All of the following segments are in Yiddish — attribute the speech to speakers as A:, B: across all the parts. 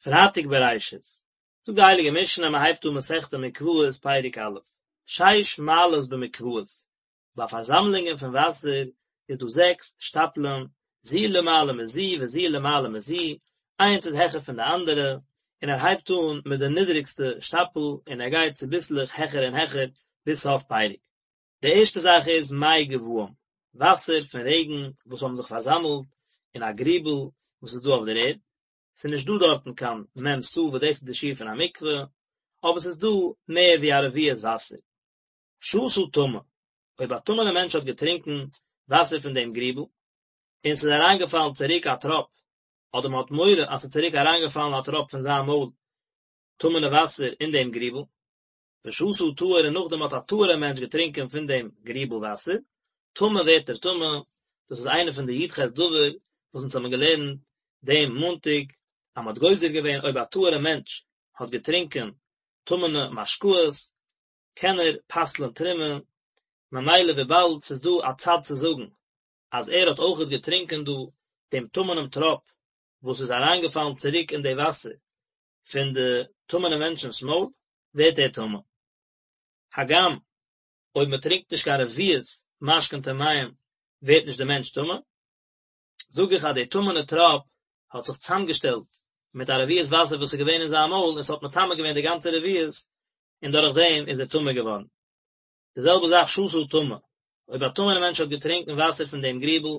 A: פרייטאג בראשית, זאגט די הייליגע משנה, מען הייבט אן מסכת מקוואות פרק א', שש מעלות במקוואות, ביי פארזאמלונגען פון וואסער איז דא זעקס שטאפלען, זו למעלה מזו וזו למעלה מזו, איינס איז העכער פון די אנדערע, און ער הייבט אן מיט די נידריגסטע שטאפל און ער גייט צוביסלעך העכער און העכער ביז סוף פרק. די ערשטע זאך איז מי גבאים, וואסער פון רעגן וואס האבן זיך פארזאמלט אין א גריבל וואס איז דא אויף דער ערד, ס'איז נישט דא דארטן קיין מ' סאה וואס דאס איז די שיעור פון א מקווה, אבער ס'איז דא מער ווי א רביעית וואסער. שתה טמא, אויב א טמא'נער מענטש האט געטרינקען וואסער פון דעם גריבל, און ס'איז אריינגעפאלן צוריק א טראפ, אדער מ'האט מורא אז ס'איז צוריק אריינגעפאלן א טראפ פון זיין מויל טמא'נע וואסער אין דעם גריבל, ושתה טהור און נאכדעם האט א טהור'ער מענטש געטרינקען פון דעם גריבל וואסער, טמא ווערט ער טמא, דאס איז איינע פון די י"ח דבר וואס אונז האבן געלערנט דעם מאנטאג, אז מ'האט גוזר געווען אויב א טהור'ער מענטש האט געטרינקען טמא'נע משקאות, קען ער פסל'ען תרומה, ממילא וויבאלד ס'איז דא א צד צו זאגן אז ער האט אויכעט געטרינקען דא דעם טמא'נעם טראפ וואס איז אריינגעפאלן צוריק אין די וואסער פון די טמא'נע מענטשנ'ס מויל, ווערט ער טמא. הגם אויב מען טרינקט נישט קיין רביעית משקין טמאים ווערט נישט די מענטש טמא, זאג איך אז די טמא'נע טראפ האט זיך צוזאמגעשטעלט מיט א רביעית וואסער וואס איז געווען אין זיין מויל און ס'האט מטמא געווען די גאנצע רביעית און דורך דעם איז ער טמא געווארן. די זעלבע זאך שתה טמא, אויב א טמא'נער מענטש האט געטרינקען וואסער פון דעם גריבל,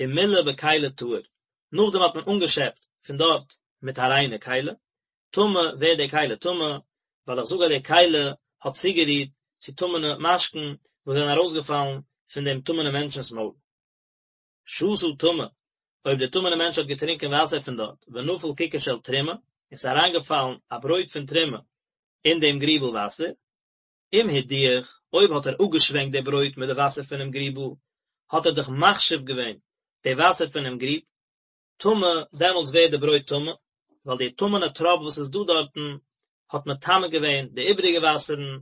A: ומילא בכלי טהור, נאכדעם האט מען אנגעשעפט פון דארט מיט א ריינע כלי, טמא ווערט די כלי טמא, ווייל איך זאג אז די כלי האט צוגערירט צו טמא'נע משקין וואס זענען ארויסגעפאלן פון דעם טמא'נעם מענטשנ'ס מויל. שתה טמא, אויב דער טמא'נער מענטש האט געטרינקען וואסער פון דארט, ונפל ככר של תרומה, און ס'איז אריינגעפאלן א ברויט פון תרומה אין דעם גריבל וואסער, אם הדיח, אויב האט ער אפגעשווענקט די ברויט מיט די וואסער פונעם גריבל, האט ער דאך מחשיב געווען די וואסער פונעם גריב, טמא, דעמאלטס ווערט די ברויט טמא, ווייל די טמא'נע טראפ וואס איז דא דארטן האט מטמא געווען די איבעריגע וואסערן,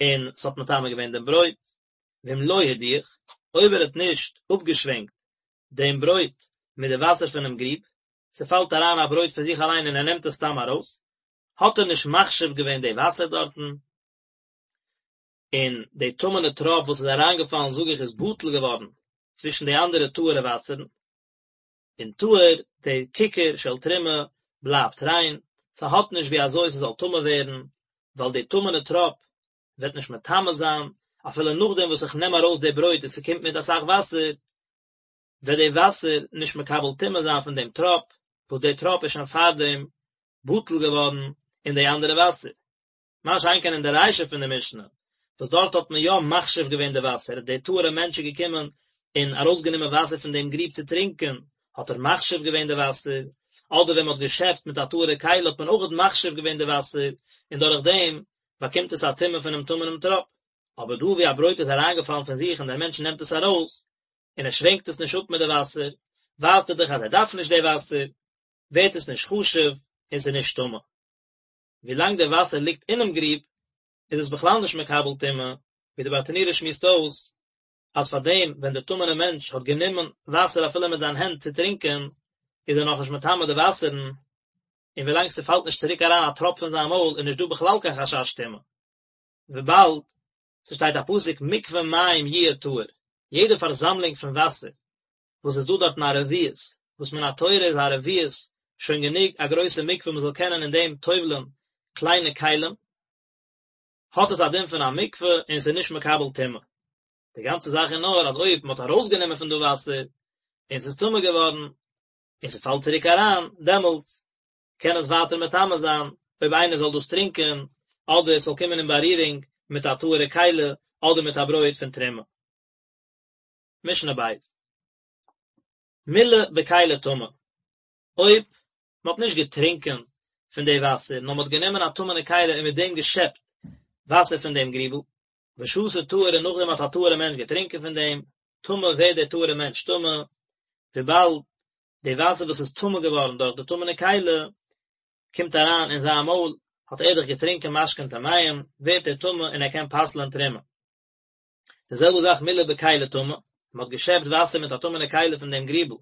A: און ס'האט מטמא געווען דעם ברויט. ואם לא הדיח, אויב ער האט נישט אפגעשווענקט דעם ברויט מיט די וואסער פונעם גריב, ס'פאלט אריין א ברויט פון זיך אליין און ער נעמט עס סתם ארויס, האט ער נישט מחשיב געווען די וואסער דארטן, און די טמא'נע טראפ וואס איז אריינגעפאלן זאג איך איז בטל געווארן צווישן די אנדערע טהור'ע וואסערן, און טהור, די ככר של תרומה בלייבט ריין, ס'האט נישט ווי אזוי ס'זאל טמא ווערן, ווייל די טמא'נע טראפ וועט נישט מטמא זיין, אפילו נאכדעם וואס איך נעם ארויס די ברויט און ס'קומט מיט אסאך וואסער, וועט די וואסער נישט מקבל טומאה זיין פון דעם טראפ, וואס די טראפ איז שוין פארדעם בטל געווארן אין די אנדערע וואסער. מה שאין כן אין די רישא פון די משנה, וואס דארט האט מען יא מחשיב געווען די וואסער, דער טהור'ע מענטש איז געקומען און ארויסגענומען וואסער פון דעם גריב צו טרינקען, האט ער מחשיב געווען די וואסער, אדער ווען מען האט געשעפט מיט א טהור'ע כלי האט מען אויכעט מחשיב געווען די וואסער, און דורך דעם באקומט עס א טומאה פונעם טמא'נעם טראפ. אבער דא ווי א ברויט איז אריינגעפאלן פון זיך און דער מענטש נעמט עס ארויס, און ער שווענקט עס נישט אפ מיט די וואסער, ווייזט ער דאך אז ער דארף נישט די וואסער, ווערט עס נישט חשוב און ס'איז נישט טמא. ווילאנג די וואסער ליגט אינעם גריב איז עס בכלל נישט מקבל טומאה, ווי די ברטנורא שמועסט אויס אז פאר דעם ווען דער טמא'נער מענטש האט גענומען וואסער אפילו מיט זיין הענט צו טרינקען איז ער נאכנישט מטמא די וואסערן, און ווילאנג ס'פאלט נישט צוריק אריין א טראפ פון זיין מויל איז נישט דא בכלל קיין חשש טומאה, וויבאלד ס'שטייט א פסוק מקווה מים יהיה טהור, יעדע פארזאמלונג פון וואסער וואס איז דא דארטן א רביעית, וואס מן התורה איז א רביעית שוין גענוג א גרויסע מקווה מען זאל קענען אין דעם טובל'ען קליינע כלים, האט עס א דין פון א מקווה און עס איז נישט מקבל טומאה. די גאנצע זאך איז נאר אז אויב מען האט ארויסגענומען פון דא וואסער און עס איז טמא געווארן און ס'פאלט צוריק אריין, דעמאלטס קען עס ווייטער מטמא זיין אויב איינער זאל דאס טרינקען אדער עס זאל קומען אין בארירונג מיט א טהור'ע כלי אדער מיט א ברויט פון תרומה. משנה בית. מילא בכלי טמא, אויב מען האט נישט געטרינקען פון די וואסער, נאר מען האט גענומען א טמא'נע כלי און מיט דעם געשעפט וואסער פון דעם גריבל, ושתה טהור און נאכדעם האט א טהור'ע מענטש געטרינקען פון דעם, טמא ווערט דער טהור'ע מענטש טמא, וויבאלד די וואסער וואס איז טמא געווארן דורך די טמא'נע כלי, קומט אריין אין זיין מויל, האט ער דאך געטרינקען משקין טמאים, ווערט ער טמא און ער קען פסל'ען תרומה. די זעלבע זאך מילא בכלי טמא, מען האט געשעפט וואסער מיט א טמא'נע כלי פון דעם גריבל,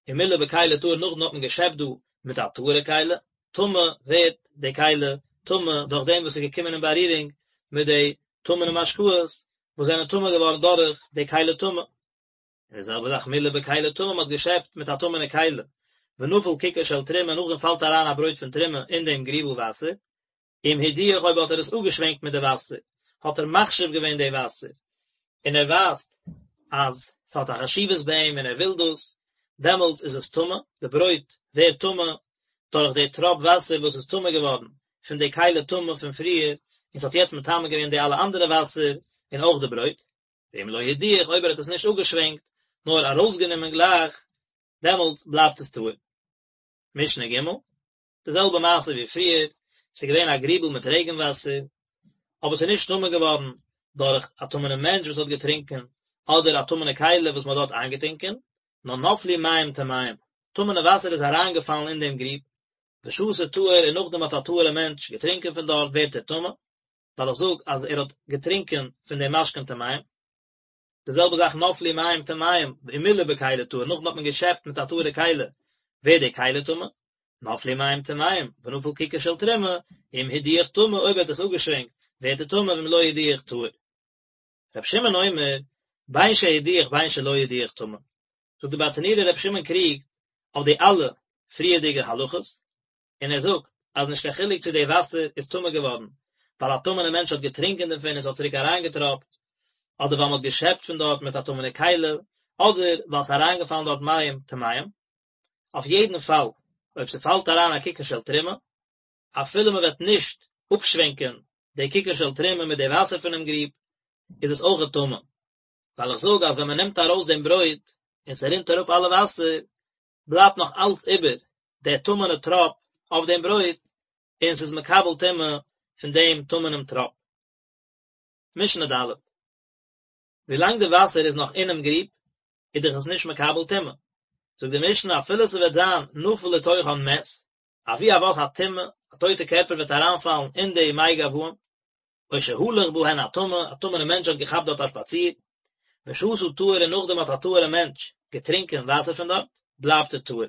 A: און מילא בכלי טהור נאכדעם האט מען געשעפט דא מיט א טהור'ע כלי, טמא ווערט די כלי טמא דורך דעם וואס איז געקומען אין בארירונג מיט די טמא'נע משקאות וואס זענען טמא געווארן דורך די כלי טמא. און די זעלבע זאך מילא בכלי טמא, מען האט געשעפט מיט א טמא'נע כלי, ונפל ככר של תרומה, נאכדעם פאלט אריין א ברויט פון תרומה אין דעם גריבל וואסער, אם הדיח אויב האט ער עס אפגעשווענקט מיט די וואסער, האט ער מחשיב געווען די וואסער, און ער ווייזט אז ס'האט א חשיבות ביי אים און ער וויל דאס, דעמאלטס איז עס טמא, די ברויט ווערט טמא דורך די טראפ וואסער וואס איז טמא געווארן פון די כלי טמא פון פריער, און ס'האט יעצט מטמא געווען די אלע אנדערע וואסער און אויך די ברויט. ואם לא הדיח אויב ער האט עס נישט אפגעשווענקט, נאר ארויסגענומען גלייך, דעמאלטס בלייבט עס טהור. משנה ג', די זעלבע מעשה ווי פריער, ס'איז געווען א גריבל מיט רעגן וואסער, אבער ס'איז נישט טמא געווארן דורך א טמא'נעם מענטש וואס האט געטרינקען, אדער א טמא'נע כלי וואס מ'האט דארט איינגעטונקען, נאר נפלו מים טמאים, טמא'נע וואסער איז אריינגעפאלן אין דעם גריב, ושתה טהור און נאכדעם האט א טהור'ע מענטש געטרינקען פון דארט ווערט ער טמא, ווייל איך זאג אז ער האט געטרינקען פון דעם משקין טמאים. די זעלבע זאך נפלו מים טמאים ומילא בכלי טהור, נאכדעם האט מען געשעפט מיט א טהור'ע כלי, ווערט די כלי טמא, נפלו מים טמאים ונפל ככר של תרומה, אם הדיח טמא, אויב ער האט עס אפגעשווענקט, ווערט ער טמא ואם לא הדיח טהור. רבי שמעון אומר, בין שהדיח בין שלא הדיח טמא. זאגט די ברטנורא רבי שמעון קריגט אויף די אלע פריערדיגע הלכות, און ער זאגט אז נישט קיין חילוק צו די וואסער איז טמא געווארן ווייל א טמא'נע מענטש האט געטרינקען דערפון און ס'האט צוריק אריינגעטראפט, אדער ווייל מ'האט געשעפט פון דארט מיט א טמא'נע כלי, אדער ווייל ס'איז אריינגעפאלן דארט מים טמאים. אויף יעדן פאל, אויב ס'פאלט אריין א ככר של תרומה, אפילו מ'וועט נישט אפשווענקען די ככר של תרומה מיט די וואסער פונעם גריב, איז עס אויכעט טמא. ווייל איך זאג אז ווען מ'נעמט ארויס דעם ברויט און ס'רינט אראפ אלע וואסער, בלייבט נאך אלץ איבער דער טמא'נע טראפ אויף דעם ברויט, און ס'איז מקבל טומאה פון דעם טמא'נעם טראפ. משנה ד'. ווילאנג די וואסער איז נאך אינעם גריב, איז דאך עס נישט מקבל טומאה. זאגט די משנה אפילו ס'וועט זיין נפל לתוכן מת, אבי אבות הטומאה, א טויטע קערפער וועט אריינפאלן אין די מי גבאים, או שהלך בהן הטמא, א טמא'נע מענטש האט געכאפט דארט א שפאציר, ושתה טהור און נאכדעם האט א טהור'ע מענטש געטרינקען וואסער פון דארט, בלייבט ער טהור.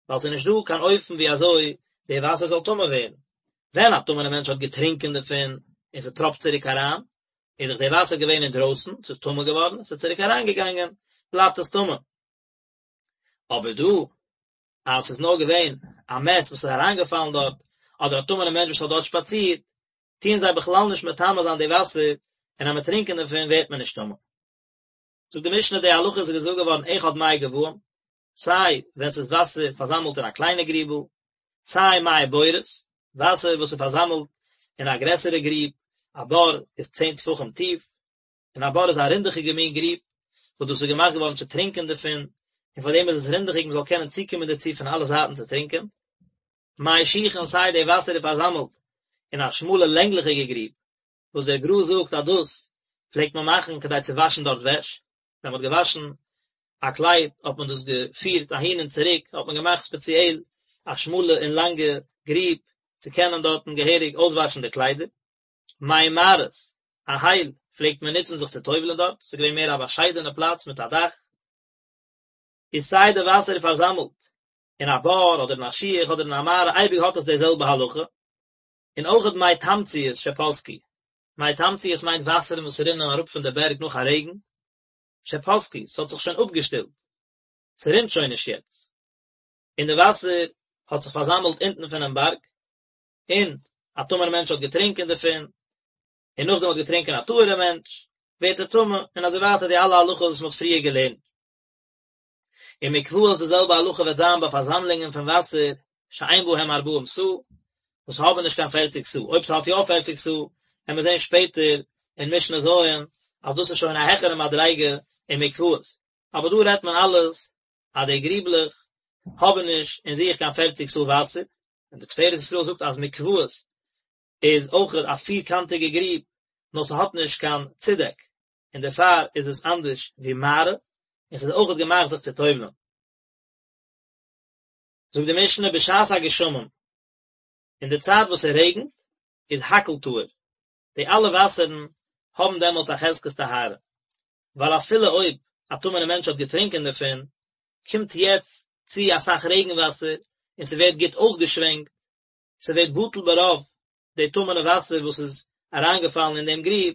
A: ווייל ס'איז נישט דא קיין אופן ווי אזוי די וואסער זאל טמא ווערן. ווען א טמא'נע מענטש האט געטרינקען דערפון און ס'טראפט צוריק אריין, איז דאך די וואסער געווען אינדרויסן, ס'איז טמא געווארן, ס'איז צוריק אריינגעגאנגען, בלייבט עס טמא. אבער דא, אז ס'איז נאר געווען א מת וואס איז אריינגעפאלן דארט, אדער א טמא'נע מענטש וואס האט דארט שפאצירט, טוען זיי בכלל נישט מטמא זיין די וואסער, און אז מ'עט טרינקען דערפון ווערט מען נישט טמא. זאגט די משנה די הלכה איז געזאגט געווארן אחד מי גבאים, סיי ווען ס'איז וואסער פארזאמלט אין א קליינע גריבל, סיי מי בורות, וואסער וואס איז פארזאמלט אין א גרעסערע גריב, א בור איז צען טפחים טיף, און א בור איז א רינדעכיגע מין גריב, וואס דאס איז געמאכט געווארן צו טרינקען דערפון, און פאר דעם איז עס רינדעכיג מען זאל קענען צוקומען דערצו פון אלע זייטן צו טרינקען. מי שיחין סיי די וואסער איז פארזאמלט אין א שמאלע לענגליכיגע גריב, וואס דער גר"א זאגט אז דאס פלעגט מען מאכן כדי צו וואשן דארט וועש, ווען מען האט געוואשן א קלייד האט מען דאס געפירט אהין און צוריק, האט מען געמאכט ספעציעל א שמאלע און לאנגע גריב צו קענען דארטן געהעריג אויסוואשן די קליידער. מי מערות, א הייל, פלעגט מען נוצן זיך צו טובל'ען דארט, ס'איז געווען מער א באשיידענע פלאץ מיט א דאך. איז סיי די וואסער איז פארזאמלט אין א בור אדער אין א שיח אדער אין א מערה אייביג האט עס די זעלבע הלכה, און אויכעט מי תמציות שפסקו, מי תמציות מיינט וואסערן וואס רינען אראפ פון די בערג נאך א רעגן, שפסקו, ס'האט זיך שוין אפגעשטילט, ס'רינט שוין נישט יעצט, און די וואסער האט זיך פארזאמלט אונטן פונעם בארג, און א טמא'נער מענטש האט געטרינקען דערפון, און נאכדעם האט געטרינקען א טהור'ער מענטש, ווערט ער טמא, און אזוי ווייטער די אלע הלכות וואס מ'האט פריער געלערנט. און מקוואות די זעלבע הלכה וועט זיין ביי פארזאמלונגען פון וואסער שאין בהם ארבעים סאה, וואס האבן נישט קיין פערציג סאה, אויב ס'האט יא פערציג סאה, וועלן מיר זען שפעטער אין משנה ז' אז דאס איז שוין א העכערע מדריגה אין מקוואות, אבער דא רעדט מען אלעס אז די גריבלעך האבן נישט אין זיך קיין פערציג סאה וואסער, און די תפארת ישראל זאגט אז מקוואות איז אויך א פירקאנטיגע גריב, נאר ס'האט נישט קיין צודעק, און דערפאר איז עס אנדערש ווי מערה, און ס'איז אויכעט געמאכט זיך צו טובל'ן. זאגט די משנה בשעת הגשמים, אין די צייט וואס ס'רעגנט, איז הכל טהור, די אלע וואסערן האבן דעמאלטס א חזקת טהרה, ווייל אפילו אויב א טמא'נער מענטש האט געטרינקען דערפון, קומט יעצט צו אסאך רעגן וואסער און ס'ווערט גוט אויסגעשווענקט. ס'ווערט בטל ברוב די טמא'נע וואסער וואס איז אריינגעפאלן אין דעם גריב,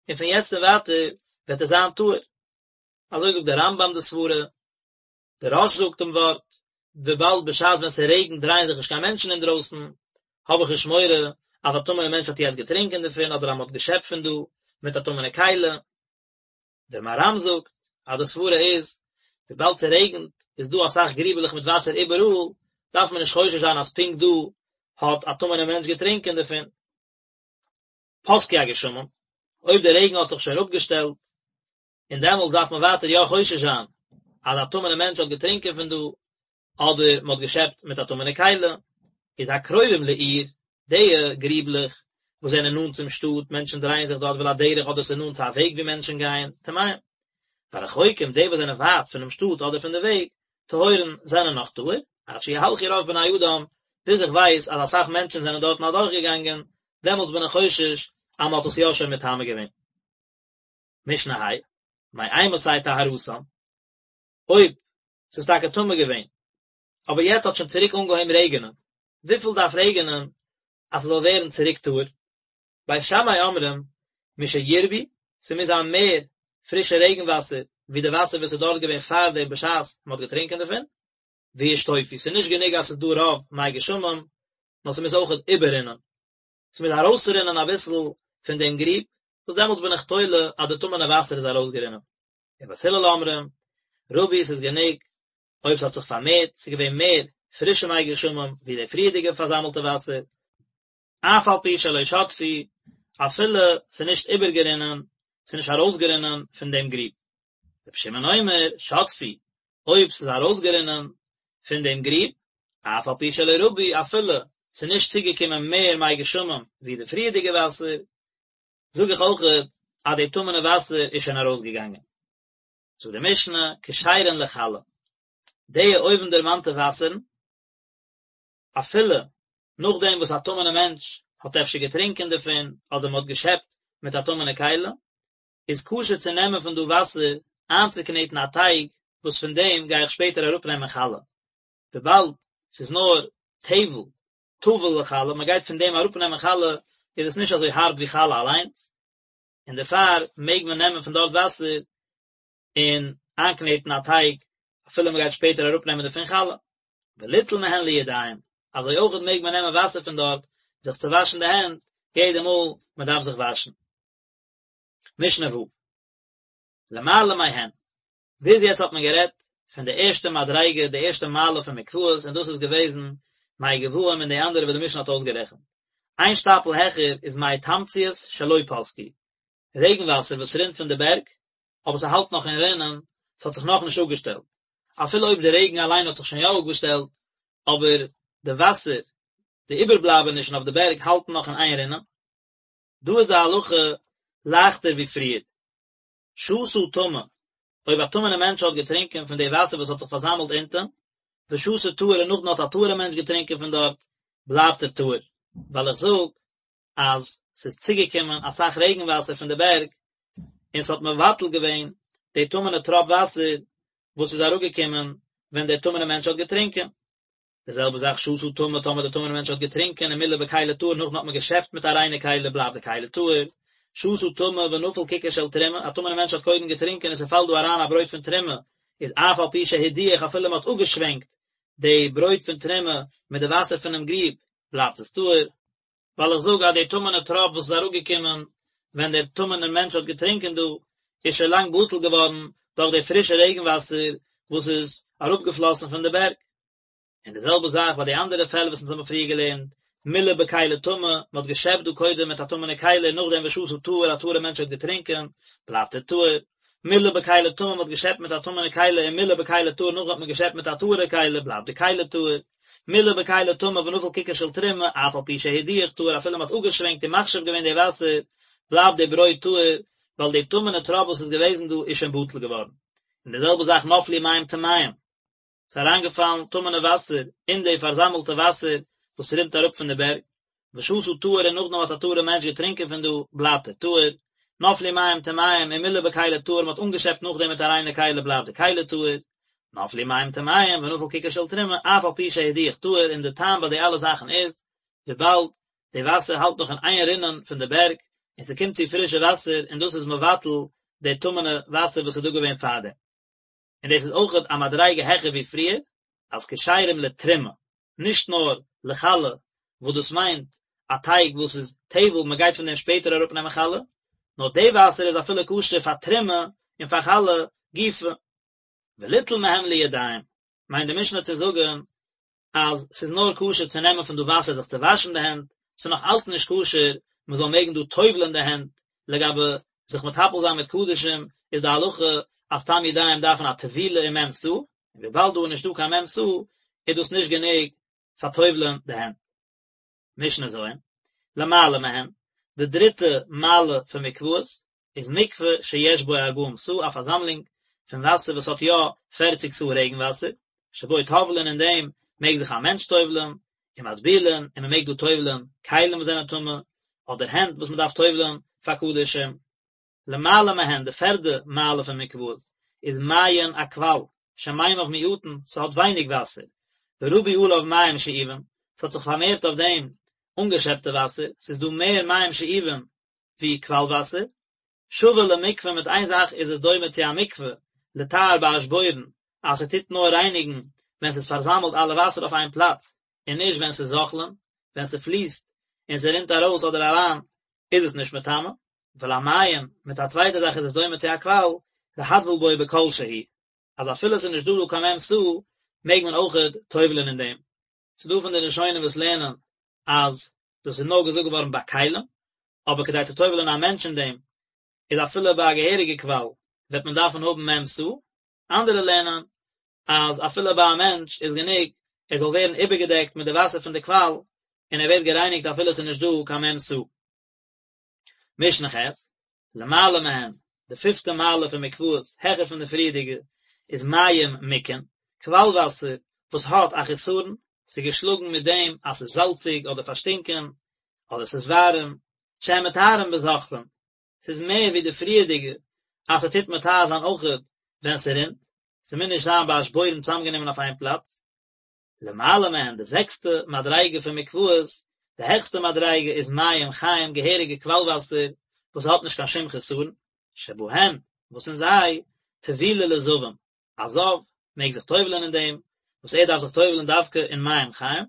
A: און פון יעצט און ווייטער וועט עס זיין טהור. אזוי זאגט דער רמב"ם די סברה, דער רא"ש זאגט דעם ווארט, וויבאלד בשעת ווען ס'רעגנט דרייען זיך נישט קיין מענטשן אינדרויסן, האב איך נישט מורא אז א טמא'נע מענטש האט יעצט געטרינקען דערפון אדער אז מ'האט געשעפט פון דא מיט א טמא'נע כלי. דער מהר"ם זאגט אז די סברה איז, וויבאלד ס'רעגנט איז דא אסאך גריבעלעך מיט וואסער איבעראל, דארף מען נישט חושש זיין אז פונקט דא האט א טמא'נע מענטש געטרינקען דערפון. פסקו הגשמים, אויב דער רעגן האט זיך שוין אפגעשטעלט, און דעמאלטס דארף מען ווייטער יא חושש זיין אז א טמא'נע מענטש האט געטרינקען פון דא, אדער מען האט געשעפט מיט א טמא'נע כלי, איז הקרובים לעיר, די גריבלעך וואס זענען נאנט צום שטאט, מענטשן דרייען זיך דארט ולדרך אדער ס'איז נאנט צו א וועג ווי מענטשן גייען, טמאים. והרחוקים, די וואס זענען ווייט פונעם שטאט אדער פון די וועג, טהורין, זענען נאך טהור, עד שיהלכו רוב בני אדם, ביז איך ווייס אז אסאך מענטשן זענען דארטן אדורכגעגאנגען, דעמאלטס בין איך חושש אז מען האט עס יא שוין מטמא געווען. משנה ה', מאימתי טהרתן, אויב ס'איז טאקע טמא געווען, אבער יעצט האט שוין צוריק אנגעהויבן רעגענען, וויפיל דארף רעגענען אז ס'זאל ווערן צוריק טהור? בית שמאי אומרים, משירבו, ס'מוז זיין מער פרישע רעגן וואסער ווי די וואסער וואס איז דארט געווען פארדעם בשעת מ'האט געטרינקען דערפון, וישטופו, ס'איז נישט גענוג אז ס'איז דא רוב מי גשמים, נאר ס'מוז אויכעט איבעררינען. ס'מוז ארויסרינען אביסל פון דעם גריב, וואס דעמאלטס בין איך תולה אז די טמא'נע וואסער איז ארויסגערינען. ובית הלל אומרים, רבו ס'איז גענוג אויב ס'האט זיך פארמערט, ס'איז געווען מער פרישע מי גשמים ווי די פריערדיגע פארזאמלטע וואסער, אף על פי שלא שטפו, אפילו ס'איז נישט איבערגערינען, ס'איז נישט ארויסגערינען פון דעם גריב. רבי שמעון אומר, שטפו, אויב ס'איז ארויסגערינען פון דעם גריב, אף על פי שלא רבו, אפילו ס'איז נישט צוגעקומען מער מי גשמים ווי די פריערדיגע וואסער, זאג איך אויכעט אז די טמא'נע וואסער איז שוין ארויסגעגאנגען. זאגט די משנה, כשרין לחלה, די אויבנדערמאנטע וואסערן, אפילו נאכדעם וואס א טמא'נע מענטש האט אפשר געטרינקען דערפון, אדער מ'האט געשעפט מיט א טמא'נע כלי, איז כשר צו נעמען פון דא וואסער איינצוקנעטן א טייג וואס פון דעם גיי איך שפעטער אראפנעמען חלה, וויבאלד ס'איז נאר טבל, טבול לחלה, מ'גייט פון דעם אראפנעמען חלה, איז עס נישט אזוי הארב ווי חלה אליינס, און דערפאר מעג מען נעמען פון דארט וואסער און איינקנעטן א טייג אפילו מ'גייט שפעטער אראפנעמען דערפון חלה. וליטול מהן לידיים, אזוי אויכעט מעג מען נעמען וואסער פון דארט זיך צו וואשן די הענט יעדע מאל מ'דארף זיך וואשן. משנה ו'. למעלה מהן. ביז יעצט האט מען גערעדט פון די ערשטע מדריגה, די ערשטע מעלה פון מקוואות, און דאס איז געוועזן מי גבאים און די אנדערע וואס די משנה האט אויסגערעכנט. איין שטאפל העכער איז מי תמציות שלא פסקו, רעגן וואסער וואס רינט פון די בערג, אבער ס'האלט נאך אין רינען, ס'האט זיך נאכנישט אפגעשטעלט. אפילו אויב די רעגן אליין האט זיך שוין יא אפגעשטעלט, אבער די וואסער, די איבערבלייבענישן אויף די בערג האלטן נאך אין איין רינען. דא איז די הלכה לייכטער ווי פריער. שתה טמא, אויב א טמא'נע מענטש האט געטרינקען פון די וואסער וואס האט זיך פארזאמלט אונטען, ושתה טהור און נאכדעם האט א טהור'ע מענטש געטרינקען פון דארט, בלייבט ער טהור. ווייל איך זאג אז ס'איז צוגעקומען אסאך רעגן וואסער פון די בערג, און ס'האט מבטל געווען די טמא'נע טראפ וואסער וואס איז אראפגעקומען ווען דער טמא'נע מענטש האט געטרינקען. די זעלבע זאך שתה טמא טאמער די טמא'נע מענטש האט געטרינקען ומילא בכלי טהור נאכדעם האט מען געשעפט מיט א ריינע כלי בלייבט די כלי טהור, שתה טמא ונפל ככר של תרומה, א טמא'נע מענטש האט קודם געטרינקען און ס'פאלט דא אריין א ברויט פון תרומה, איז אף על פי שהדיח אפילו מ'האט אפגעשווענקט די ברויט פון תרומה מיט די וואסער פונעם גריב בלייבט עס טהור. ווייל איך זאג אז די טמא'נע טראפ וואס איז אראפגעקומען ווען דער טמא'נער מענטש האט געטרינקען דא, איז שוין לאנג בטל געווארן דורך די פרישע רעגן וואסער וואס איז אראפגעפלאסן פון די בערג. און די זעלבע זאך ביי די אנדערע פעלער וואס אונז האבן פריער געלערנט, מילא בכלי טמא, מען האט געשעפט דא קודם מיט א טמא'נע כלי און נאכדעם ושתה טהור, א טהור'ע מענטש האט געטרינקען, בלייבט ער טהור. מילא בכלי טמא, מען האט געשעפט מיט א טמא'נע כלי ומילא בכלי טהור, נאכדעם האט מען געשעפט מיט א טהור'ע כלי, בלייבט די כלי טהור. מילא בכלי טמא ונפל ככר של תרומה, אף על פי שהדיח טהור, אפילו מען האט אפגעשווענקט און מחשיב געווען די וואסער, בלייבט די ברויט טהור, ווייל די טמא'נע טראפ וואס איז געוועזן דא איז שוין בטל געווארן. און די זעלבע זאך נפלו מים טמאים, ס'איז אריינגעפאלן טמא'נע וואסער אין די פארזאמלטע וואסער וואס רינט אראפ פון די בערג, ושתה טהור און נאכדעם האט א טהור'ע מענטש געטרינקען פון דא, בלייבט ער טהור, נפלו מים טמאים ומילא בכלי טהור, מ'האט אנגעשעפט נאכדעם מיט א ריינע כלי בלייבט די כלי טהור, נפלו מים טמאים ונפל ככר של תרומה, אף על פי שהדיח טהור, און די טעם ביי די אלע זאכן איז, וויבאלד די וואסער האלט נאך אין איין רינען פון די בערג, און ס'קומט צו פרישע וואסער און דאס איז מבטל די טמא'נע וואסער וואס איז דא געווען פארדעם. און דאס איז אויכעט א מדריגה העכער ווי פריער, אז כשרים לתרומה, נישט נאר לחלה, וואס דאס מיינט א טייג וואס איז טבל, מען גייט פון דעם שפעטער אראפנעמען חלה, נאר די וואסער איז אפילו כשר פאר תרומה און פאר חלה גופא. וליטול מהם לידיים, מיינט די משנה צו זאגן אז ס'איז נאר כשר צו נעמען פון דא וואסער זיך צו וואשן די הענט, ס'איז נאך אלץ נישט כשר מען זאל מעגן דא טובל'ען די הענט, לגבי זיך מטפל זיין מיט קדשים איז די הלכה אז סתם ידיים דארפן א טבילה אין מ' סאה, און וויבאלד דא איז נישטא קיין מ' סאה איז דאס נישט גענוג פאר טובל'ען די הענט. משנה ז', למעלה מהן, די דריטע מעלה פון מקוואות איז מקווה שיש בו ארבעים סאה, א פארזאמלונג פון וואסער וואס האט יא פערציג סאה רעגן וואסער, שבו טובלין אין דעם מעג זיך א מענטש טובל'ן, ומטבילין, און מען מעג דא טובל'ן כלים וואס זענען טמא, אדער הענט וואס מען דארף טובל'ן פאר קדשים. למעלה מהן, די פערדע מעלה פון מקוואות, איז מעיין א קוואל, שמימיו מועטין, ס'האט ווייניג וואסער, ורבו עליו מים שאובים, ס'האט זיך פארמערט אויף דעם אנגעשעפטע וואסער, ס'איז דא מער מים שאובים ווי קוואל וואסער. שווה למקווה מיט איין זאך איז עס דומה צו א מקווה, לטהר באשבורן, אז ס'טוט נאר רייניגן ווען ס'איז פארזאמלט אלע וואסער אויף איין פלאץ, און נישט ווען ס'איז זוחלין, ווען ס'פליסט און ס'רינט ארויס אדער אריין איז עס נישט מטמא. ולמעיין, מיט א צווייטע זאך איז עס דומה צו א קוואל, להטביל בו בכל שהוא, אז אפילו עס איז נישט דא דא קיין מ' סאה, מעג מען אויכעט טובל'ען אין דעם. ס'איז דא פון די ראשונים וואס לערנען אז דאס איז נאר געזאגט געווארן ביי כלים, אבער כדי צו טובל'ען א מענטש אין דעם, איז אפילו ביי א געהעריגע קוואל, וועט מען דארפן האבן מ' סאה. אנדערע לערנען אז אפילו ביי א מענטש איז גענוג ער זאל ווערן איבערגעדעקט מיט די וואסער פון די קוואל, און ער ווערט גערייניגט אפילו עס איז נישט דא קיין מ' סאה. משנה ח', למעלה מהן, די פיפטע מעלה פון מקוואות, העכער פון די פריערדיגע, איז מים מוכין, קוואל וואסער וואס האט א חסרון, ס'איז געשלאגן מיט דעם אז ס'איז זאלציג אדער פארשטינקען, אדער ס'איז ווארעם, שהן מטהרין בזוחלין, ס'איז מער ווי די פריערדיגע אז ס'טוט מטהר זיין אויכעט ווען ס'רינט, ס'מוז נישט זיין באשבורן צוזאמגענומען אויף איין פלאץ. למעלה מהן, די זעקסטע מדריגה פון מקוואות, די העכסטע מדריגה איז מים חיים, געהעריגע קוואל וואסער וואס האט נישט קיין שום חסרון, שבהן, וואס אין זיי, טבילה לזבים, א זב מעג זיך טובל'ען אין דעם, וואס ער דארף זיך טובל'ען דווקא אין מים חיים,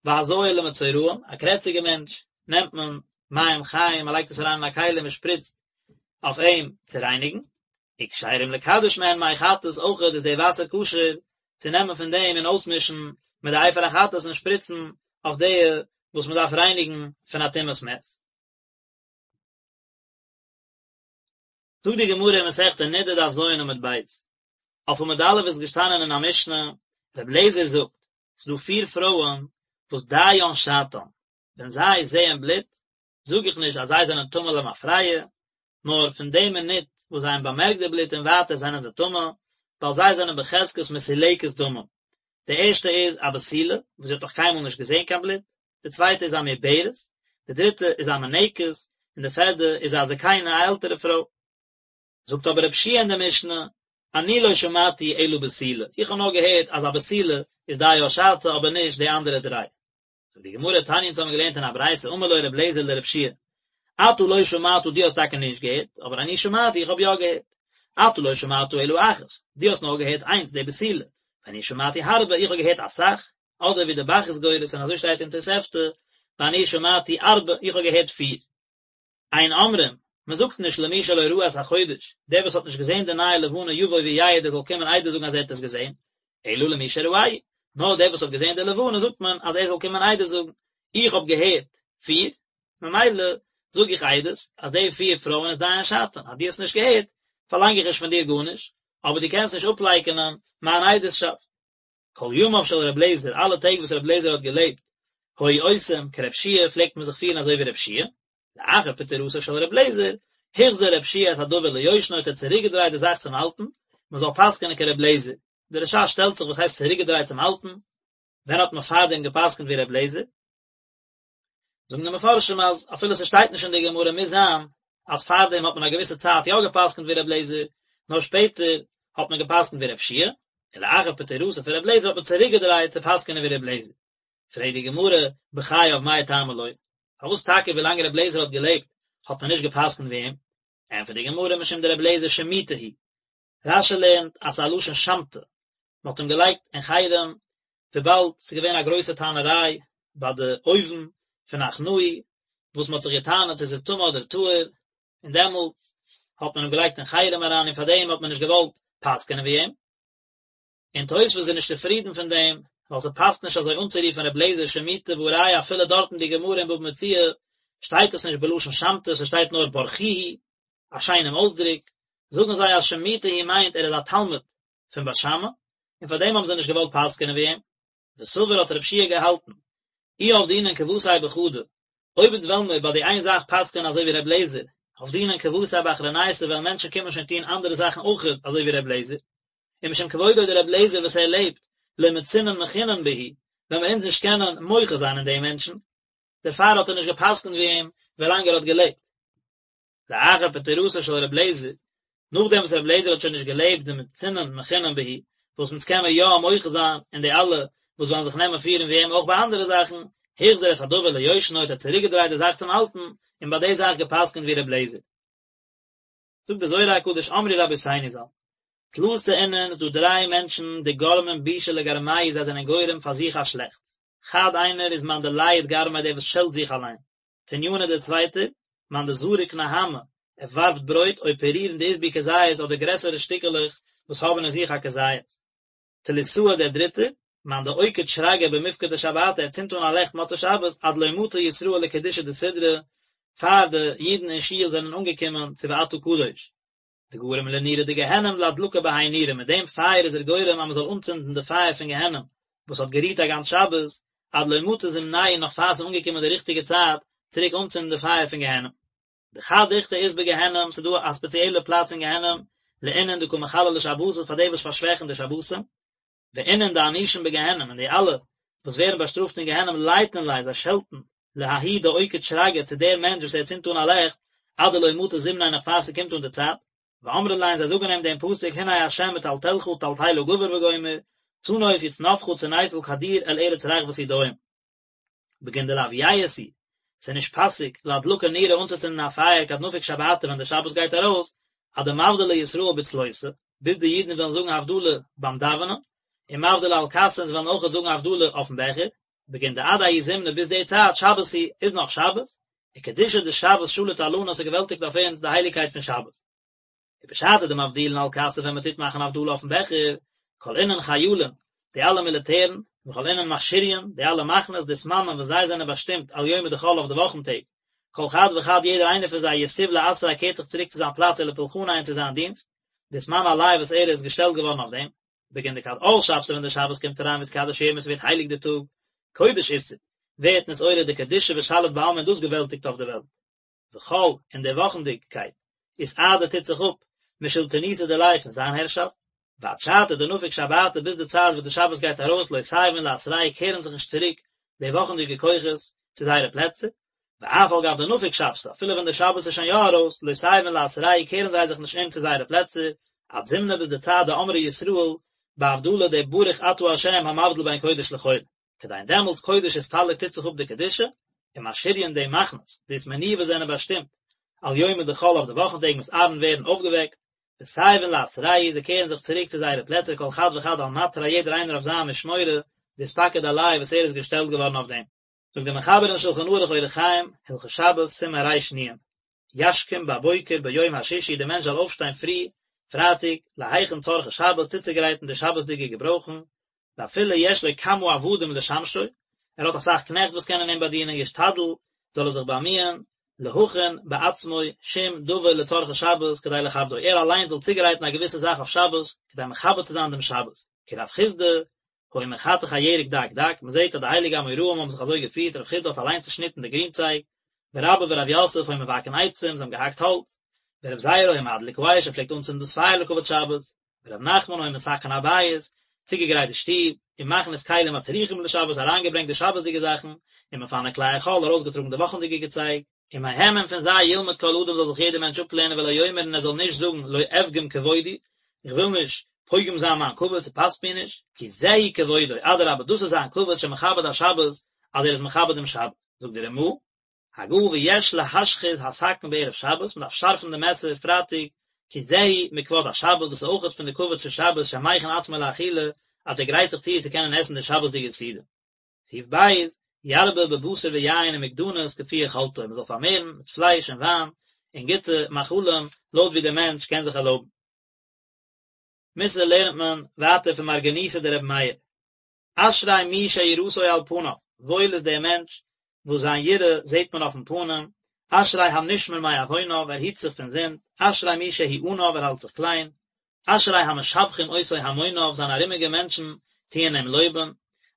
A: והזיה למצורעים, א קרעציגע מענטש, נעמט מען מים חיים, מען לייגט עס אריין אין א כלי און מען שפריצט אויף אים צו רייניגן, וכשרים לקדש מהן מי חטאת, אויכעט איז די וואסער כשר צו נעמען פון דעם און אויסמישן מיט די אפר החטאת און שפריצן אויף די וואס מען דארף רייניגן פון א טומאת מת. זאגט די גמרא אין מסכת נדה דף ז עמוד ב', אויף עמוד א' איז געשטאנען אין א משנה, ר' אליעזר זאגט, ס'איז דא פיר פרויען וואס דיין שעתן, ווען זיי זעען בלוט, זאג איך נישט אז זיי זענען טמא למפרע, נאר פון די מינוט וואס זיי האבן באמערקט די בלוט און ווייטער זענען זיי טמא, ווייל זיי זענען בחזקת מסולקת דמים. די ערשטע איז א בתולה, וואס זי האט נאך קיינמאל נישט געזען קיין בלוט, די צווייטע איז א מעוברת, די דריטע איז א מניקת, און די פערדע איז א זקנה, א עלטערע פרוי. זאגט אבער רבי יהושע אין די משנה, אני לא שמעתי אלא בתולה, איך האב נאר געהערט אז א בתולה איז דיה שעתה אבער נישט די אנדערע דריי. זאגט די גמרא תניא אונז האבן געלערנט אין א ברייתא אמר לו רבי אליעזר לרבי יהושע אתה לא שמעת דו האסט טאקע נישט געהערט אבער אני שמעתי איך האב יא געהערט אתה לא שמעת אלא אחת דו האסט נאר געהערט איינס די בתולה ואני שמעתי הרבה איך האב געהערט אסאך אדער ווי די ב"ח איז גורס און אזוי שטייט אין תוספתא ואני שמעתי ארבע איך האב געהערט פיר אין אומרים, מען זאגט נישט למי שלא ראה את החודש, דער וואס האט נישט געזען די נייע לבנה יבוא ויעיד ער זאל קומען עדות זאגן אז ער האט עס געזען, אלא למי שראהו, נאר דער וואס האט געזען די לבנה זאגט מען אז ער זאל קומען עדות זאגן, איך האב געהערט פיר, ממילא זאג איך עדות אז די פיר פרויען איז דיין שעתן, אז דו האסט נישט געהערט, פארלאנג איך נישט פון דיר גארנישט, אבער דו קענסט נישט אפלייקענען מיין עדות'שאפט. כל ימיו של ר' אליעזר, אלע טעג וואס ר' אליעזר האט געלעבט, היו עושים כר' יהושע פלעגט מען זיך פירן אזוי ווי ר' יהושע, לאחר פטירתו של ר' אליעזר, החזיר ר' יהושע את הדבר ליושנו האט ער צוריקגעדרייט די זאך צום אלטן, מען זאל פסק'ענען כר' אליעזר. די רש"ש שטעלט זיך וואס הייסט צוריקגעדרייט צום אלטן? ווען האט מען פארדעם געפסק'נט ווי ר' אליעזר? זאגן די מפרשים אז אפילו ס'שטייט נישט אין די גמרא מוז זיין אז פארדעם האט מען א געוויסע צייט יא געפסקנט ווי ר' אליעזר, נאר שפעטער האט מען געפסקנט ווי ר' יהושע, און לאחר פטירתו פון ר' אליעזר האט מען צוריקגעדרייט צו פסק'נען ווי ר' אליעזר. פרעגט די גמרא, בחייו מאי טעמא לא? פארוואס טאקע ווילאנג רבי אליעזר האט געלעבט האט מען נישט גע'פסק'נט ווי אים? ענטפערט די גמרא, משום דרבי אליעזר שמוטי הוא. רש"י לערנט אז ס'איז א לשון שמתא, מען האט אים געלייגט אין חרם וויבאלד ס'איז געווען א גרויסע טענה'ריי ביי די אויוון פון עכנאי, וואס מען האט זיך גע'טענה'ט צו ס'איז טמא אדער טהור, און דעמאלטס האט מען אים געלייגט אין חרם אריין און פארדעם האט מען נישט געוואלט פסק'ענען ווי אים. און תוספות איז נישט צופרידן פון דעם, ווייל ס'פאסט נישט אזוי אנצורופן ר' לעזער שמוטי והא ראיה אפילו דארט אין די גמרא אין בבא מציעא שטייט עס נישט בלשון שמתא ס'שטייט נאר ברכוהו, א שיינעם אויסדרוק, זאגן זיי אז שמוטי הוא מיינט ער איז א תלמיד פון בית שמאי, און פאר דעם האבן זיי נישט געוואלט פסק'ענען ווי אים. וסבר האט רב שיע געהאלטן, אי עבדינן כוותיה בחדא, אויב אונז וועלן מיר ביי די איין זאך פסק'ענען אזוי ווי ר' לעזער, עבדינן כוותיה באחרונייתא וועלן מענטשן קומען שוין טון אנדערע זאכן אויכעט אזוי ווי ר' לעזער, ומשום כבודו דר' לעזער וואס ער לעבט, לא מצינן מחינן בהו, וועלן מיר אונז נישט קענען מוחה זיין אין די מענטשן, דערפאר האט ער נישט גע'פסק'נט ווי אים ווילאנג ער האט געלעבט. לאחר פטירתו של ר' לעזער, נאכדעם וואס ר' לעזער האט שוין נישט געלעבט דמצינן מחינן בהו, וואס אונז קען מיר יא מוחה זיין אין די אלע וואס וועלן זיך נעמען פירן ווי אים אויך ביי אנדערע זאכן, החזיר את הדבר ליושנו האט ער צוריקגעדרייט די זאך צום אלטן, און ביי די זאך גע'פסק'נט ווי ר' לעזער. זאגט דער זוהר הקדוש אמרו רבותינו ז"ל, תלתא אינון ס'דא דריי מענטשן דגרמין בישא לגרמייהו זיי זענען גורם פאר זיך א שלעכטס, חד איינער איז מאן דלייט גרמיה דער וואס שעלט זיך אליין, תניינא דער צווייטער, מאן דזריק נהמא ער ווארפט ברויט או פירורין דאית בהו כזית אדער גרעסערע שטיקעלעך וואס האבן אין זיך א כזית. תליתאי דער דריטער, מאן דאוקיד שרגא במפקדי שבתא ער צינדט אן א לעכט מוצאי שבת עד לא מטו ישראל לקדושה דסדרא, פאר די אידן אין שול זענען אנגעקומען צו ואתה קדוש. דגרים לנורא דגיהנם לאדלקא בהאי נורא, מיט דעם פייער איז ער גורם אז מען זאל אנצינדן די פייער פון גיהנם וואס האט גערוהט א גאנץ שבת, עד לא מטא זמנייהו נאך פאר ס'איז אנגעקומען די ריכטיגע צייט צוריק אנצינדן די פייער פון גיהנם. דחד דוכתא אית בגיהנם, ס'איז דא א ספעציעלע פלאץ אין גיהנם לאינון דקא מחללי שבתות פאר די וואס פארשוועכן די שבתים, ואינון דענישין בגיהנם און די אלע וואס ווערן באשטראפט אין גיהנם לייטין ליה זיי שעלטן לההוא דאוקיד שרגא צו דער מענטש וואס ער צינדט אן א לעכט עד דלא מטא זמניה נאך פאר ס'קומט אן די צייט, ואמרין ליה און זיי זאגן אים דעם פסוק הנה ה' מטלטלך טלטלה גבר וגומר, צנוף יצנפך צניפא כדור אל ארץ רחבת ידיים. בגין דלאו יאות הוא, ס'איז נישט פאסיג לאדלקא נורא אנצוצינדן א פייער כד נפיק שבתא ווען די שבת גייט ארויס, עד דמבדלי ישראל בצלותא, ביז די אידן וועלן זאגן הבדלה ביים דאווענען, ומבדלי על כסא און זיי וועלן אויכעט זאגן הבדלה אויפן בעכער, בגין דעד ההוא זמנא ביז די צייט שבת היא, איז נאך שבת, וקדושה דשבת שליט עלנא ס'געוועלטיגט אויף אונז די הייליגקייט פון שבת. ובשעתא דמבדילין על כסא ווען מען טוט מאכן הבדלה אויפן בעכער, כל אינון חיילין, די אלע מיליטערן, וכל אינון משריין, די אלע מחנות, דאתמנן וואס זיי זענען באשטימט על יומי דחול אויף די וואכן טעג, כל חד וחד יעדער איינער פון זיי יתיב לאתריה קערט זיך צוריק צו זיין פלאץ ולפולחניה און צו זיין דינסט, דאתמני עליה וואס ער איז געשטעלט געווארן אויף דעם. בגין דכד עאל שבתא ווען די שבת קומט אריין ואתקדש יומא ס'ווערט הייליג די טאג, קודש אתער, ווערט נתעורר די קדושה ושליט בעלמא און דאס געוועלטיגט אויף די וועלט. וחול, און די וואכנדיגקייט, אתעדי טוט זיך אפ, משלטינותא דיליה פון זיין הערשאפט, ועד שעתא דנפיק שבתא ביז די צייט וואס די שבת גייט ארויס לא תיבון לאתרייהו קערן זיך נישט צוריק די וואכנדיגע כוחות צו זייערע פלעצער, ואף על גב דנפיק שבתא אפילו ווען די שבת איז שוין יא ארויס לא תיבון לאתרייהו קערן זיי זיך נישט אום צו זייערע פלעצער, עד זמנא ביז די צייט דאמרי ישראל בהבדלה די ברוך אתה ה' המבדיל בין קודש לחול. כדין דעמאלטס קודש אסתלק טוט זיך אפ די קדושה, ומשריין די מחנות, דאתמנוהו וואס זענען באשטימט, על יומי דחול אויף די וואכן טעג מתערין ווערן אויפגעוועקט, ותיבון לאתרייהו זיי קערן זיך צוריק צו זייערע פלעצער כל חד וחד על מטריה יעדער איינער אויף זיין משמורה, דאתפקיד עליה וואס ער איז געשטעלט געווארן אויף דעם. זאגט דער מחבר אין שלחן ערוך אורח חיים, הלכות שבת, סימן ר"נ, ישכים בבוקר ביום השישי דער מענטש זאל אויפשטיין פרי פרייטאג להכין צרכי שבת צוצוגרייטן די שבת'דיגע געברויכן, ואפילו יש לו כמה עבדים לשמשו, ער האט אסאך קנעכט וואס קענען אים באדינען, ישתדל, זאל ער זיך באמיען, להכין בעצמו שום דבר לצרכי שבת כדי לכבדו, ער אליין זאל צוגרייטן א געוויסע זאך אויף שבת, כדי מכבד צו זיין דעם שבת, כרב חסדא, היה מחתך הירק דק דק, מען זעט אז די הייליגע אמוראים האבן זיך אזוי געפירט, רב חסדא האט אליין צעשניטן די גרינצייג, ורבה ורב יוסף היו מבקעין עצים, זיי האבן געהאקט האלץ, ורב זירא היה מדליק האש, ער פלעגט אנצינדן דאס פייער לכבוד שבת, ורב נחמן היה מתקן הבית, צוגעגרייט די שטוב, ומכניס כלים הצריכים לשבת, אריינגעברענגט די שבת'דיגע זאכן, ומפנה כלי החול, ארויסגעטראגן די וואכנדיגע געצייג. ומהם און פון זיי ילמד כל אדם זאל זיך יעדער מענטש אפלערנען ולא יאמר און ער זאל נישט זאגן לא אפגום כבודי, איך וויל נישט. פוגם זיין מיין כבוד, ס'פאסט מיר נישט, כי זהו כבודו, אדרבה דאס איז זיין כבוד שמכבד השבת, אז ער איז מכבד דעם שבת. זאגט דער רמ"א, הגה ויש להשחיז הסכין בערב שבת, מ'דארף שארפן די מעסער פרייטאג, כי זהו מכבוד השבת, דאס איז אויכעט פון די כבוד פון שבת שמכין עצמו לאכילה, אז ער גרייט זיך צו צו קענען עסן די שבת'דיגע סעודה. סעיף ב', ירבה בבשר ויין ומגדנות כפי יכולתו, מ'זאל פארמערן מיט פלייש און וויין און גוטע מאכלים לויט ווי דער מענטש קען זיך ערלויבן. מוסר לערנט מען ווייטער פון מרגניתא דרבי מאיר. אשרי מי שיראתו על פניו, וואויל איז דער מענטש וואס זיין יראה זעט מען אויפן פנים, אשרי הנשמר מעווניו, ער היט זיך פון זינד, אשרי מי שהוא עניו, ער האלט זיך קליין, אשרי המשבחים אותו המוניו, זיינע ארומיגע מענטשן טוען אים לויבן,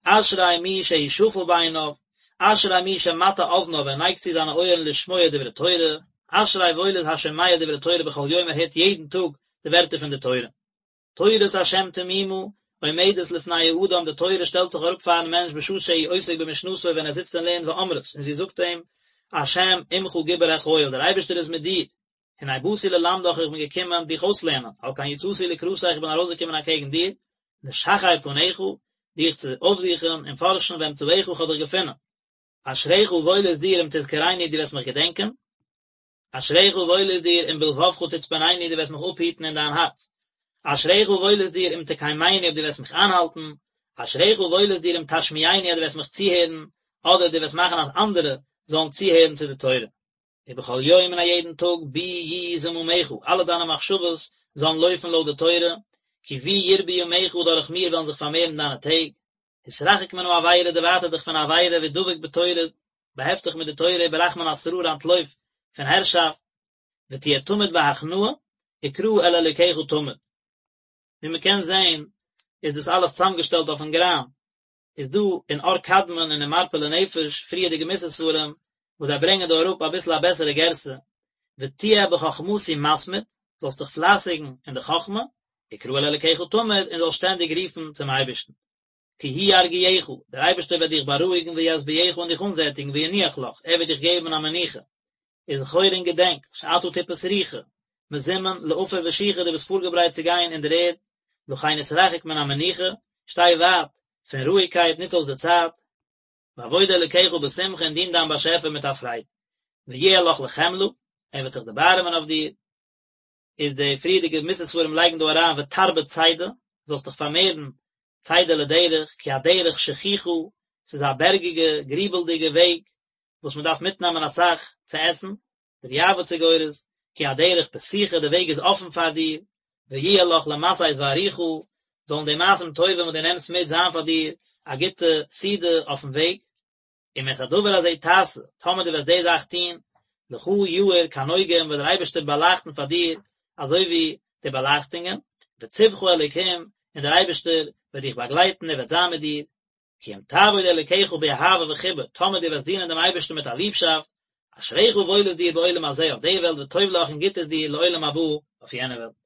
A: אשרי מי שהוא שפל בעיניו, אשרי מי שמטה אזניו, ער נייגט צו זיינע אויערן לשמוע דברי תורה, אשרי וואויל איז השומע דברי תורה בכל יום, ער הערט יעדן טאג די ווערטער פון די תורה. תורת השם תמימה, עומדת לפני האדם, די תורה שטעלט זיך אראפ פארן מענטש בשעה שהוא עוסק במשנתו ווען ער זיצט און לערנט ואומרת, און זי זאגט אים, השם עמך גיבור החיל, דער אייבערשטער איז מיט דיר, הנה באתי ללמדך איך בין געקומען דיך אויסלערנען, על כן יצאתי לקראתך איך בין ארויסגעקומען אקעגן דיר, לשחר פניך, דיך צו אויפזוכן און פארשן ואמצאך איך האב דיך געפונען. אשריך וואויל איז דיר אם תזכרני דו וועסט מיך געדענקען, אשריך וואויל איז דיר אם בלבבך תצפנני דו וועסט מיך אפהיטן אין דיין הארץ. אשריך וואויל איז דיר אם תקיימני אויב דו וועסט מיך איינהאלטן. אשריך וואויל איז דיר אם תשמיעני אז דו וועסט מיך צוהערן, אדער דו וועסט מאכן אז אנדערע זאלן צוהערן צו די תורה. ובכל יום און א יעדן טאג בי יהיו זממך, אלע דיינע מחשבות זאלן לויפן לויט די תורה, כי בי ירבו ימיך דורך מיר וועלן זיך פארמערן דיינע טעג. התרחק מן העבירה דערווייטער דיך פון עבירה והדבק בתורה, באהעפט דיך מיט די תורה וברח מן השררה אנטלויף פון הערשאפט, ותהיה תמיד בהכנעה, וקרא אל אלוקיך תמיד. ווי מען קען זען איז דאס אלעס צוזאמגעשטעלט אויפן גראם, איז דא אין אור קדמון און אין מרפא לנפש פריערדיגע מוסר ספרים וואס זיי ברענגען דא אראפ אביסל א בעסערע גירסא, ותהיה בחכמתי מתמיד, זאלסט דיך פלייסיגן אין די חכמה, וקרא אל אלוקיך תמיד, און זאלסט שטענדיג רופן צום אייבערשטן. כי הוא ירגיעך, דער אייבערשטער וועט דיך בארואיגן וישביעך און דיך אנזעטיגן וינוח לך, ער וועט דיך געבן א מנוחה. וזכור און געדענק, שאתה טיפה סרוחה, מזומן לעפר ושוחה דו ביסט פארגעברייט צו גיין אין דער ערד, לכן התרחק מן המנוחה, שטיי ווייט פון רואיגקייט, נוץ אויס די צייט, ועבוד אלוקיך בשמחה און דין דיין באשעפער מיט א פרייד, ויהיה לך לחמלה, ער וועט זיך דערבארעמען אויף דיר, איז די פריערדיגע מוסר ספרים לייגן דא אריין ותרבה צידה, זאלסט דיך פארמערן צידה לדרך, כי הדרך שחוחה, ס'איז א בערגיגע, גריבלדיגע וועג, וואס מען דארף מיטנעמען אסאך צו עסן, דער יעב"ץ איז גורס, כי הדרך פתוחה, די וועג איז אפן פאר דיר, ויהיה לך למשאת וארוחה, זאלן די מעשים טובים וואס דו נעמסט מיט זיין פאר דיר א גוטע סעודה אויפן וועג. אם את הדבר הזה תעשה, טאמער דו וועסט די זאך טון, לך יאיר כנוגהים וועט דער אייבערשטער באלייכטן פאר דיר אזוי ווי די באלייכטונגען, וצווך אלוקים, און דער אייבערשטער וועט דיך באגלייטן, ער וועט זיין מיט דיר, כי אם תעבוד אלוקיך באהבה וחיבה, טאמער דו וועסט דינען דעם אייבערשטן מיט א ליבשאפט, אשריך וואויל איז דיר בעולם הזה אויף די וועלט וטוב לך און גוט איז דיר לעולם הבא אויף יענע וועלט.